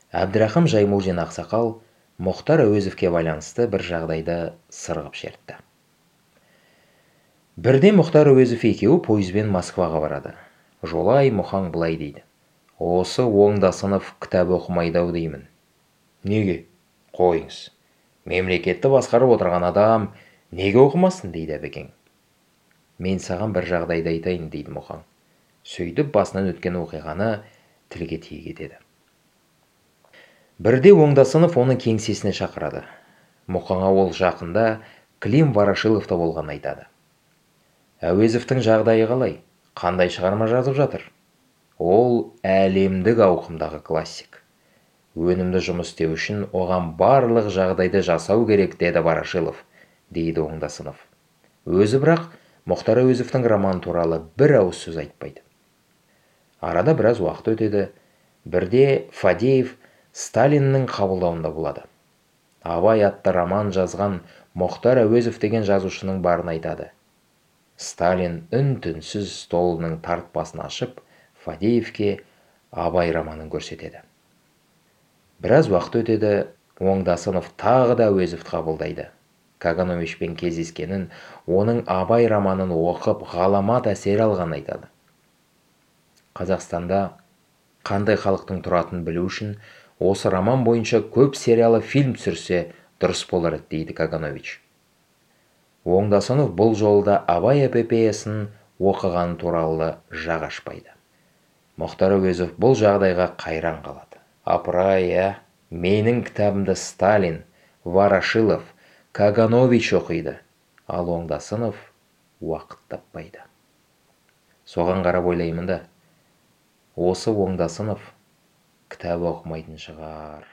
Әбдірахым Жаймурзин ақсақал Мұхтар Әуезовке байланысты бір жағдайды сырғып шертті. Бірде Мұхтар Әуезов екеуі пойызбен Москваға барады. Жолай Мұхаң былай дейді: осы Оңдасынов кітап оқымайды-ау деймін. Неге? Қойыңыз. Мемлекетті басқарып отырған адам неге оқымасын, дейді Әбекең. Мен саған бір жағдайды айтайын, дейді Мұхаң. Сөйтіп басынан өткен оқиғаны тілге тиек етеді. Бірде Оңдасынов оны кеңсесіне шақырады. Мұхаңа ол жақында Клим Ворошиловта болғанын айтады. Әуезовтің жағдайы қалай? Қандай шығарма жазып жатыр? Ол әлемдік ауқымдағы классик. Өнімді жұмыс істеу үшін оған барлық жағдайды жасау керек, деді Ворошилов, дейді Оңдасынов. Өзі бірақ Мұхтар Әуезовтің романы туралы бір ауыз сөз айтпайды. Арада біраз уақыт өтеді. Бірде Фадеев Сталиннің қабылдауында болады. Абай атты роман жазған Мұхтар Әуезов деген жазушының барын айтады. Сталин үн-түнсіз столының тартпасын ашып, Фадеевке Абай романын көрсетеді. Біраз уақыт өтеді. Оңдасынов тағы да Әуезовті қабылдайды. Кагановичпен кездескенін, оның Абай романын оқып, ғаламат әсер алғанын айтады. Қазақстанда қандай халықтың тұратынын білу үшін осы роман бойынша көп сериалы фильм түсірсе дұрыс болар еді, дейді Каганович. Оңдасынов бұл жолда Абай эпопеясын оқыған туралы жақ ашпайды. Мұхтар Әуезов бұл жағдайға қайран қалады. Апырай, менің кітабымды Сталин, Ворошилов, Каганович оқиды, ал Оңдасынов уақыт таппайды. Соған қарап ойлаймын да, осы Оңдасынов кітап оқымайтын шығар.